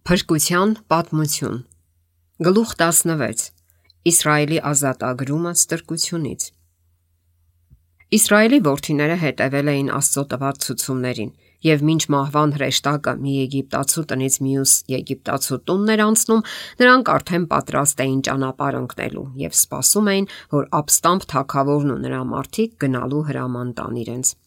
Փրկության պատմություն։ Գլուխ 16. Իսրայելի ազատագրումը ստրկությունից։ Իսրայելի որդիները հետևել էին Աստծո տված ցուցումներին, եւ մինչ մահվան հրեշտակը մի եգիպտացու տնից մյուս եգիպտացու տունն էր անցնում, նրանք արդեն պատրաստ էին ճանապարհ ընկնելու եւ սպասում էին, որ ապստամբ թագավորն ու նրա մարդիկ գնալու հրաման տան իրենց։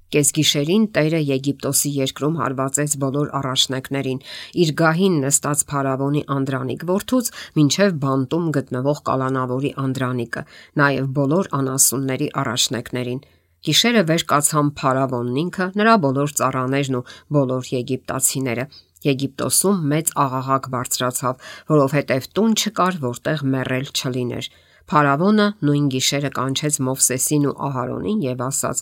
Կեսգիշերին Տերը Եգիպտոսի երկրում հարվածեց բոլոր առաջնեկներին, իր գահին նստած փարավոնի Անդրանիկ որդուց մինչև բանտում գտնվող կալանավորի Անդրանիկը, նաև բոլոր անասունների առաջնեկներին։ Գիշերը վեր կացան փարավոնն ինքը, նրա բոլոր ծառաներն ու բոլոր եգիպտացիները։ Եգիպտոսում մեծ աղաղակ բարձրացավ, որովհետև տուն չկար, որտեղ մեռել չլիներ։ Փարավոնը նույն գիշերը կանչեց Մովսեսին ու Ահարոնին եւ ասաց.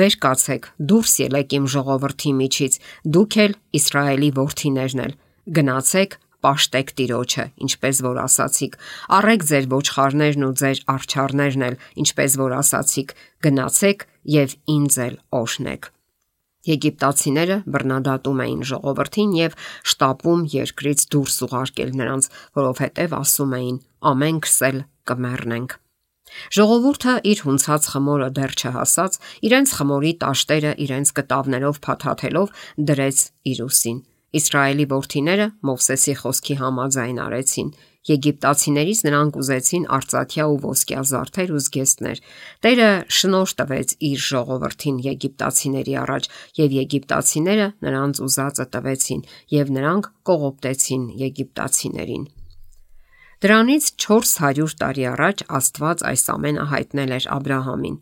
«Վեր կացեք, դուրս ելեք իմ ժողովրդի միջից, դուք էլ Իսրայելի որդիներն էլ, գնացեք, պաշտեք Տիրոջը, ինչպես որ ասացիք, առեք ձեր ոչխարներն ու ձեր արջառներն էլ, ինչպես որ ասացիք, գնացեք եւ ինձ էլ օրհնեք»։ Եգիպտացիները բռնադատում էին ժողովրդին եւ շտապում երկրից դուրս ուղարկել նրանց, որովհետեւ ասում էին. «Ամենքս էլ կմեռնենք»։ Ժողովուրդը իր հունցած խմորը դեռ չհասած, իրենց խմորի տաշտերը իրենց կտավներով փաթաթելով դրեց իր ուսին։ Իսրայելի որդիները Մովսեսի խոսքի համաձայն արեցին։ Եգիպտացիներից նրանք ուզեցին արծաթյա ու ոսկյա զարդեր ու զգեստներ։ Տերը շնորհ տվեց իր ժողովրդին եգիպտացիների առաջ, եւ եգիպտացիները նրանց ուզածը տվեցին, եւ նրանք կողոպտեցին եգիպտացիներին։ Դրանից 400 տարի առաջ Աստված այս ամենը հայտնել էր Աբրահամին։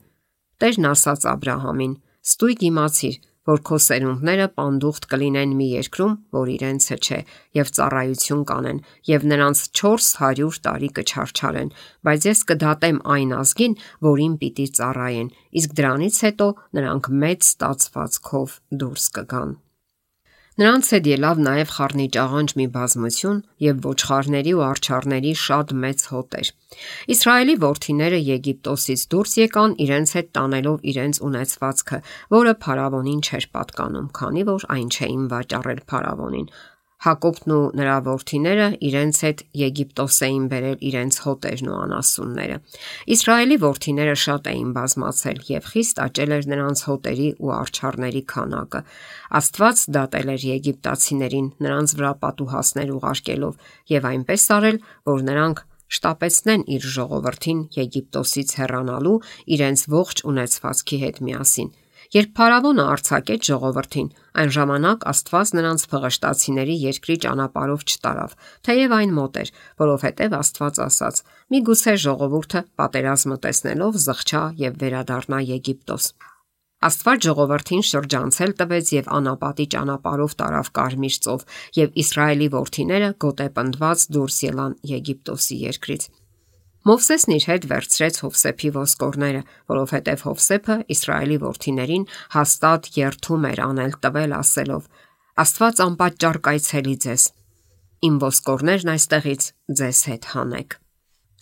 Տերն ասաց Աբրահամին. «Ստույգ իմացիր, որ քո սերունդները պանդուխտ կլինեն մի երկրում, որ իրենցը չէ, եւ ծառայություն կանեն, եւ նրանց 400 տարի կչարչարեն, բայց ես կդատեմ այն ազգին, որին պիտի ծառայեն, իսկ դրանից հետո նրանք մեծ ստացվածքով դուրս կգան»։ Նրանց հետ ելավ նաև խառնիճաղանճ մի բազմություն եւ ոչխարների ու արջառների շատ մեծ հոտեր։ Իսրայելի որդիները Եգիպտոսից դուրս եկան իրենց հետ տանելով իրենց ունեցվածքը, որը փարավոնին չէր պատկանում, քանի որ այն չէին վաճառել փարավոնին։ Հակոբն ու նրա որդիները իրենց հետ Եգիպտոս էին բերել իրենց հոտերն ու անասունները։ Իսրայելի որդիները շատ էին բազմացել եւ խիստ աճել էր նրանց հոտերի ու արջառների քանակը։ Աստված դատել էր եգիպտացիներին նրանց վրա պատուհասներ ուղարկելով եւ այնպես արել, որ նրանք շտապեցնեն իր ժողովրդին Եգիպտոսից հեռանալու իրենց ողջ ունեցվածքի հետ միասին։ Երբ փարավոնը արձակեց ժողովրդին, այն ժամանակ Աստված նրանց փղշտացիների երկրի ճանապարհով չտարավ, թեև այն մոտ էր, որովհետև Աստված ասաց. «Միգուցե ժողովուրդը պատերազմը տեսնելով զղջա եւ վերադառնա Եգիպտոս»։ Աստված ժողովրդին շրջանցել տվեց եւ անապատի ճանապարհով տարավ Կարմիր ծով, եւ Իսրայելի որդիները գոտեպնդված դուրս ելան Եգիպտոսի երկրից։ Մովսեսն իր հետ վերցրեց Հովսեփի ոսկորները, որովհետև Հովսեփը Իսրայելի որդիներին հաստատ երթում էր անել տվել ասելով. «Աստված անպատճառ կայցելի ձեզ, իմ ոսկորներն այստեղից ձեզ հետ հանեք»։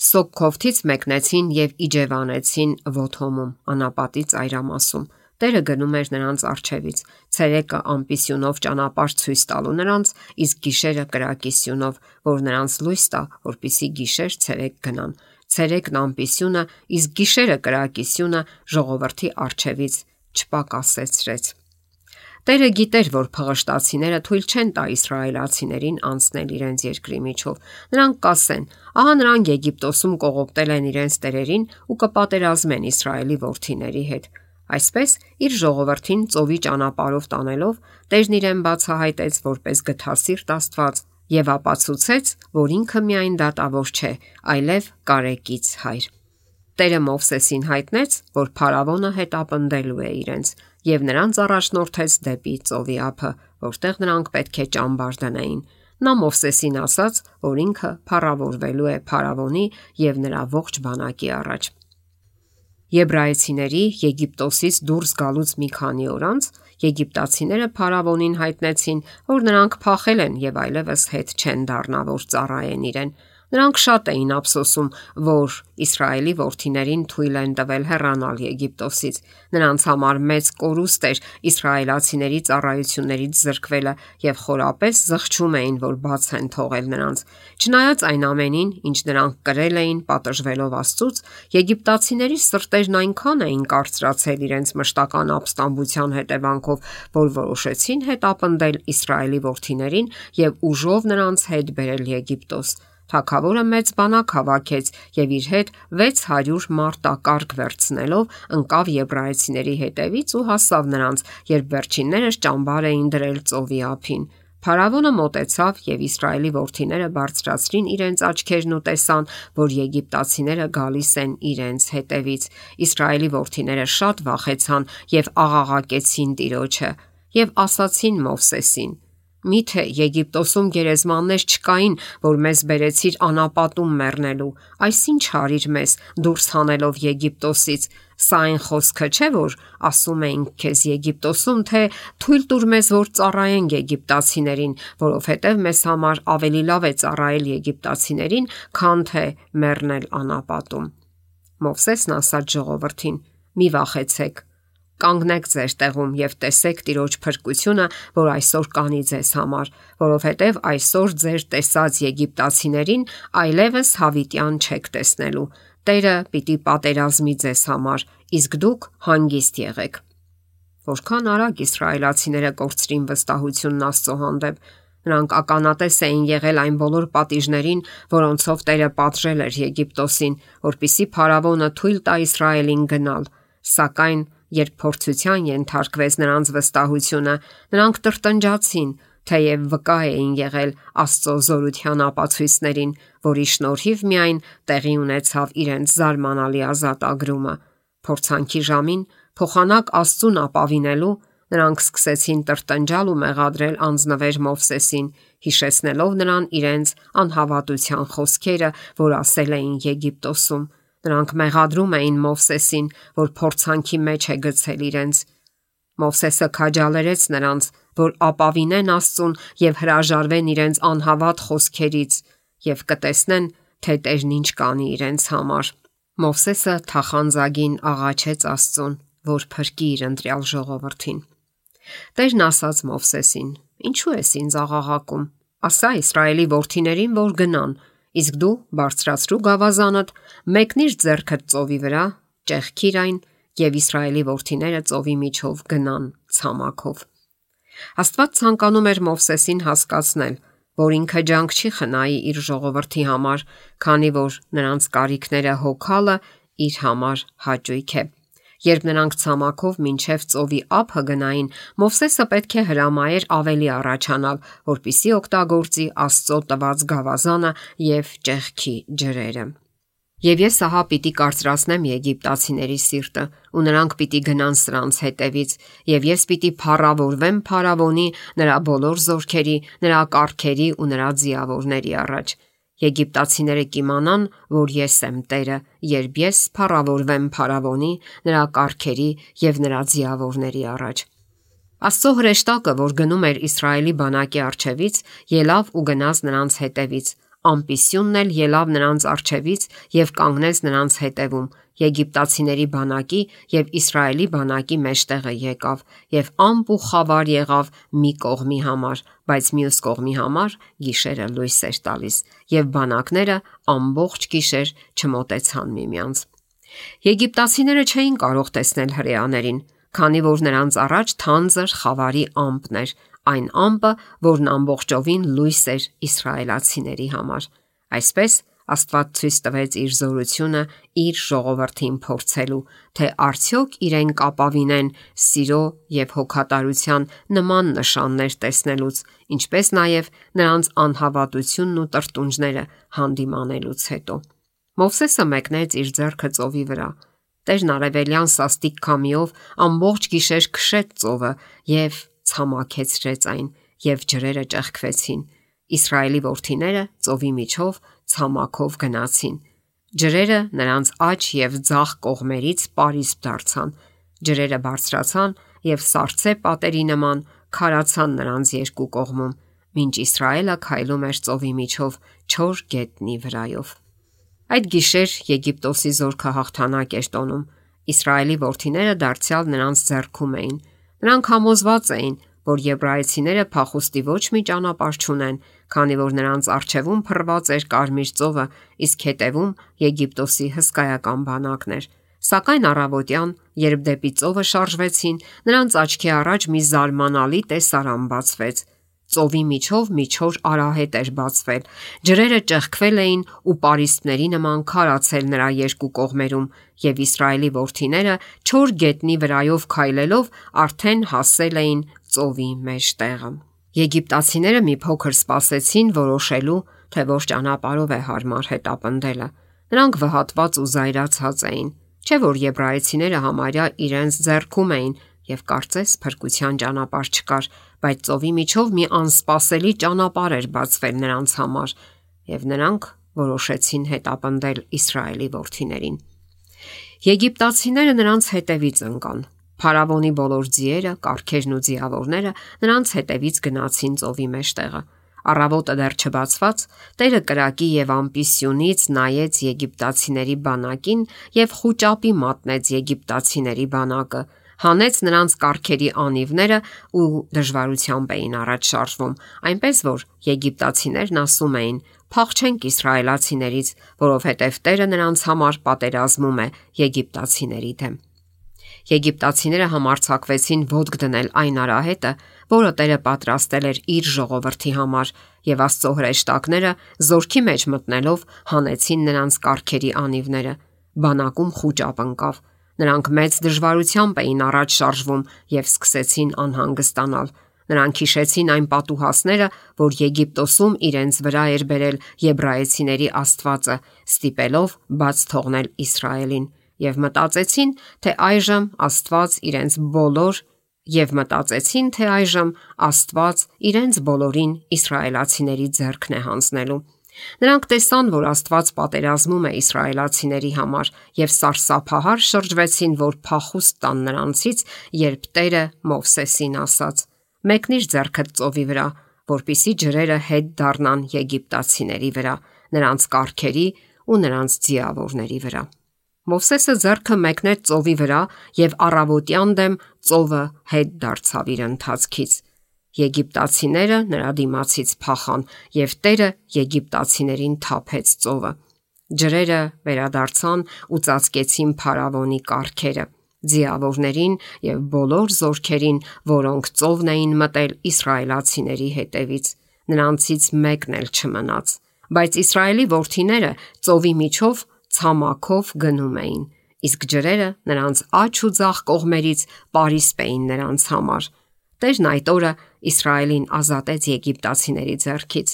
Սոկքովթից մեկնեցին եւ իջևանեցին Ոթոմում, անապատի ծայրամասում։ Տերը գնում էր նրանց առջևից, ցերեկը ամպիսյունով ճանապարհ ցույց տալու նրանց, իսկ գիշերը կրակի սյունով, որ նրանց լույս տա, որպեսզի գիշեր ցերեկ գնան։ Ցերեկն ամպիսյունը, իսկ գիշերը կրակի սյունը ժողովրդի առջևից չպակասեցրեց։ Տերը գիտեր, որ փղշտացիները թույլ չեն տա իսրայելացիներին անցնել իրենց երկրի միջով։ Նրանք կասեն. «Ահա նրանք Եգիպտոսում կողոպտել են իրենց տերերին ու կպատերազմեն Իսրայելի որդիների հետ»։ Այսպես իր ժողովրդին ծովի ճանապարհով տանելով Տերն իրեն բացահայտեց որպես գթասիրտ Աստված եւ ապացուցեց, որ ինքը միայն դատավոր չէ, այլև կարեկից Հայր։ Տերը Մովսեսին հայտնեց, որ փարավոնը հետապնդելու է իրենց եւ նրանց առաջնորդեց դեպի ծովի ափը, որտեղ նրանք պետք է ճամբար դնեին։ Նա Մովսեսին ասաց, որ ինքը փառավորվելու է փարավոնի եւ նրա ողջ բանակի առաջ։ Եբրայեցիների Եգիպտոսից դուրս գալուց մի քանի օր անց եգիպտացիները փարավոնին հայտնեցին, որ նրանք փախել են եւ այլևս հետ չեն դառնա, որ ծառայեն իրեն։ Նրանք շատ էին ափսոսում, որ Իսրայելի որդիներին թույլ են տվել հեռանալ Եգիպտոսից։ Նրանց համար մեծ կորուստ էր իսրայելացիների ծառայություններից զրկվելը եւ խորապես զղջում էին, որ բաց են թողել նրանց։ Չնայած այն ամենին, ինչ նրանք կրել էին պատժվելով Աստծուց, եգիպտացիների սրտերն այնքան էին կարծրացել իրենց մշտական ապստամբության հետևանքով, որ որոշեցին հետապնդել Իսրայելի որդիներին եւ ուժով նրանց հետ բերել Եգիպտոս։ Թագավորը մեծ բանակ հավաքեց եւ իր հետ 600 մարտակառք վերցնելով ընկավ եբրայեցիների հետևից ու հասավ նրանց, երբ վերջիններս ճամբար էին դրել ծովի ափին։ Փարավոնը մոտեցավ եւ Իսրայելի որդիները բարձրացրին իրենց աչքերն ու տեսան, որ եգիպտացիները գալիս են իրենց հետևից։ Իսրայելի որդիները շատ վախեցան եւ աղաղակեցին Տիրոջը եւ ասացին Մովսեսին. Միթե Եգիպտոսում գերեզմաններ չկային, որ մեզ բերեցիր անապատում մեռնելու։ Այս ինչ արիր մեզ դուրս հանելով Եգիպտոսից։ Սա այն խոսքը չէ, որ ասում էինք քեզ Եգիպտոսում, թե թույլ տուր մեզ, որ ծառայենք եգիպտացիներին, որովհետև մեզ համար ավելի լավ է ծառայել եգիպտացիներին, քան թե մեռնել անապատում։ Մովսեսն ասաց ժողովրդին. Մի վախեցեք։ Կանգնեք ձեր տեղում եւ տեսեք Տիրոջ փրկությունը, որ այսօր կանի ձեզ համար, որովհետեւ այսօր ձեր տեսած եգիպտացիներին այլևս հավիտյան չեք տեսնելու։ Տերը պիտի պատերազմի ձեզ համար, իսկ դուք հանգիստ եղեք։ Որքան արագ իսրայելացիները կորցրին վստահությունն Աստծո հանդեպ։ Նրանք ականատես էին եղել այն բոլոր պատիժներին, որոնցով Տերը պատժել էր Եգիպտոսին, որպիսի փարավոնը թույլ տա Իսրայելին գնալ, սակայն երբ փորձության ենթարկվեց նրանց վստահությունը, նրանք տրտնջացին, թեև վկա էին եղել Աստծո զորության ապացույցներին, որի շնորհիվ միայն տեղի ունեցավ իրենց զարմանալի ազատագրումը։ Փորձանքի ժամին փոխանակ Աստծուն ապավինելու նրանք սկսեցին տրտնջալ ու մեղադրել անձնվեր Մովսեսին, հիշեցնելով նրան իրենց անհավատության խոսքերը, որ ասել էին Եգիպտոսում։ Նրանք մեղադրում էին Մովսեսին, որ փորձանքի մեջ է գցել իրենց։ Մովսեսը քաջալերեց նրանց, որ ապավինեն Աստծուն եւ հրաժարվեն իրենց անհավատ խոսքերից եւ կտեսնեն, թե Տերն ինչ կանի իրենց համար։ Մովսեսը թախանձագին աղաչեց Աստծուն, որ փրկի իր ընտրյալ ժողովրդին։ Տերն ասաց Մովսեսին. Ինչու ես ինձ աղաղակում։ Ասա Իսրայելի որդիներին, որ գնան, իսկ դու բարձրացրու գավազանդ, մեկնիր ձեռքդ ծովի վրա, ճեղքիր այն եւ Իսրայելի որդիները ծովի միջով գնան ցամաքով։ Աստված ցանկանում էր Մովսեսին հասկացնել, որ ինքը ջանք չի խնայի իր ժողովրդի համար, քանի որ նրանց կարիքները հոգալը իր համար հաճույք է։ Երբ նրանք ցամաքով մինչև ծովի ափը գնային, Մովսեսը պետք է հրամայեր ավելի առաջանալ, որպիսի օգտագործի Աստծո տված գավազանը եւ ճեղքի ջրերը։ Եվ ես ահա պիտի կարծրացնեմ եգիպտացիների սիրտը, ու նրանք պիտի գնան սրանց հետևից, եւ ես պիտի փառավորվեմ փարավոնի, նրա բոլոր զորքերի, նրա կառքերի ու նրա ձիավորների առաջ։ Եգիպտացիները կիմանան, որ ես եմ Տերը, երբ ես փառավորվեմ փարավոնի, նրա կառքերի եւ նրա ձիավորների առաջ։ Աստծո հրեշտակը, որ գնում էր Իսրայելի բանակի առջևից, ելավ ու գնաց նրանց հետևից։ Ամպիսյունն էլ ելավ նրանց առջևից եւ կանգնեց նրանց հետևում։ Եգիպտացիների բանակի եւ Իսրայելի բանակի մեջտեղը եկավ եւ ամպ ու խավար եղավ մի կողմի համար, բայց մյուս կողմի համար գիշերը լույս էր տալիս եւ բանակները ամբողջ գիշեր չմոտեցան միմյանց։ Եգիպտացիները չէին կարող տեսնել հրեաներին, քանի որ նրանց առաջ թանձր խավարի ամպն էր, այն ամպը, որն ամբողջովին լույս էր իսրայելացիների համար։ Այսպես Աստված ցույց տվեց իր զորությունը իր ժողովրդին փորձելու, թե արդյոք իրեն կապավինեն սիրո եւ հոգատարության նման նշաններ տեսնելուց, ինչպես նաեւ նրանց անհավատությունն ու տրտունջները հանդիմանելուց հետո։ Մովսեսը մեկնեց իր ձեռքը ծովի վրա։ Տերն արևելյան սաստիկ քամիով ամբողջ գիշեր քշեց ծովը եւ ցամաքեցրեց այն, եւ ջրերը ճեղքվեցին։ Իսրայելի որդիները ծովի միջով ցամաքով գնացին։ Ջրերը նրանց աջ եւ ձախ կողմերից պարիսպ դարձան։ Ջրերը բարձրացան եւ սառցե պատերի նման քարացան նրանց երկու կողմում, մինչ Իսրայելը քայլում էր ծովի միջով չոր գետնի վրայով։ Այդ գիշեր Եգիպտոսի զորքը հաղթանակ էր տոնում։ Իսրայելի որդիները դարձյալ նրանց ձեռքում էին։ Նրանք համոզված էին, որ եբրայեցիները փախուստի ոչ մի ճանապարհ չունեն, քանի որ նրանց առջևում փռված էր Կարմիր ծովը, իսկ հետևում Եգիպտոսի հսկայական բանակներ։ Սակայն առավոտյան, երբ դեպի ծովը շարժվեցին, նրանց աչքի առաջ մի զարմանալի տեսարան բացվեց։ Ծովի միջով մի չոր արահետ էր բացվել։ Ջրերը ճեղքվել էին ու պարիսպների նման քարացել նրա երկու կողմերում, եւ Իսրայելի որդիները չոր գետնի վրայով քայլելով արդեն հասել էին ծովի մեջտեղը։ Եգիպտացիները մի փոքր սպասեցին որոշելու, թե որ ճանապարհով է հարմար հետապնդելը։ Նրանք վհատված ու զայրացած էին, չէ որ եբրայեցիները համարյա իրենց ձեռքում էին եւ կարծես փրկության ճանապարհ չկար, բայց ծովի միջով մի անսպասելի ճանապարհ էր բացվել նրանց համար, եւ նրանք որոշեցին հետապնդել Իսրայելի որդիներին։ Եգիպտացիները նրանց հետևից ընկան։ Փարավոնի բոլոր ձիերը, կառքերն ու ձիավորները նրանց հետևից գնացին ծովի մեջտեղը։ Առավոտը դեռ չբացված, Տերը կրակի եւ ամպի սյունից նայեց եգիպտացիների բանակին եւ խուճապի մատնեց եգիպտացիների բանակը, հանեց նրանց կառքերի անիվները ու դժվարությամբ էին առաջ շարժվում, այնպես որ եգիպտացիներն ասում էին. «Փախչենք իսրայելացիներից, որովհետև Տերը նրանց համար պատերազմում է եգիպտացիների դեմ»։ Եգիպտացիները համարձակվեցին ոտք դնել այն արահետը, որը Տերը պատրաստել էր իր ժողովրդի համար, եւ Աստծո հրեշտակները զորքի մեջ մտնելով հանեցին նրանց կառքերի անիվները։ Բանակում խուճապ ընկավ։ Նրանք մեծ դժվարությամբ էին առաջ շարժվում եւ սկսեցին անհանգստանալ։ Նրանք հիշեցին այն պատուհասները, որ Եգիպտոսում իրենց վրա էր բերել եբրայեցիների Աստվածը, ստիպելով բաց թողնել Իսրայելին, եւ մտածեցին, թե այժմ Աստված իրենց բոլորին իսրայելացիների ձեռքն է հանձնելու։ Նրանք տեսան, որ Աստված պատերազմում է իսրայելացիների համար եւ սարսափահար շրջվեցին, որ փախուստ տան նրանցից, երբ Տերը Մովսեսին ասաց. «Մեկնիր ձեռքդ ծովի վրա, որպիսի ջրերը հետ դառնան եգիպտացիների վրա, նրանց կառքերի ու նրանց ձիավորների վրա»։ Մովսեսը ձեռքը մեկնեց ծովի վրա եւ առավոտյան դեմ ծովը հետ դարձավ իր ընթացքից։ Եգիպտացիները նրա դիմացից փախան եւ Տերը եգիպտացիներին թափեց ծովը։ Ջրերը վերադարձան ու ծածկեցին Փարավոնի կառքերը, ձիավորներին եւ բոլոր զորքերին, որոնք ծովն էին մտել իսրայելացիների հետևից։ Նրանցից մեկն էլ չմնաց։ Բայց Իսրայելի որդիները ծովի միջով ցամաքով գնում էին, իսկ ջրերը նրանց աջ ու ձախ կողմերից պարիսպ էին նրանց համար։ Տերն այդ օրը Իսրայելին ազատեց եգիպտացիների ձեռքից։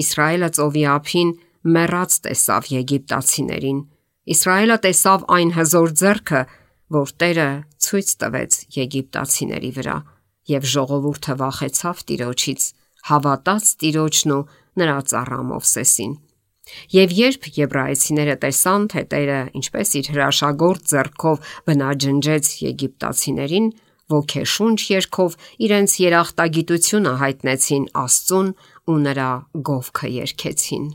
Իսրայելը ծովի ափին մեռած տեսավ եգիպտացիներին։ Իսրայելը տեսավ այն հզոր ձեռքը, որ Տերը ցույց տվեց եգիպտացիների վրա, եւ ժողովուրդը վախեցավ Տիրոջից, հավատաց Տիրոջն ու նրա ծառա Մովսեսին։ Եվ երբ եբրայեցիները տեսան, թե Տերը ինչպես իր հրաշագործ ձեռքով բնաջնջեց եգիպտացիներին, ոգեշունչ երգով իրենց երախտագիտությունը հայտնեցին Աստծուն ու նրա գովքը երգեցին։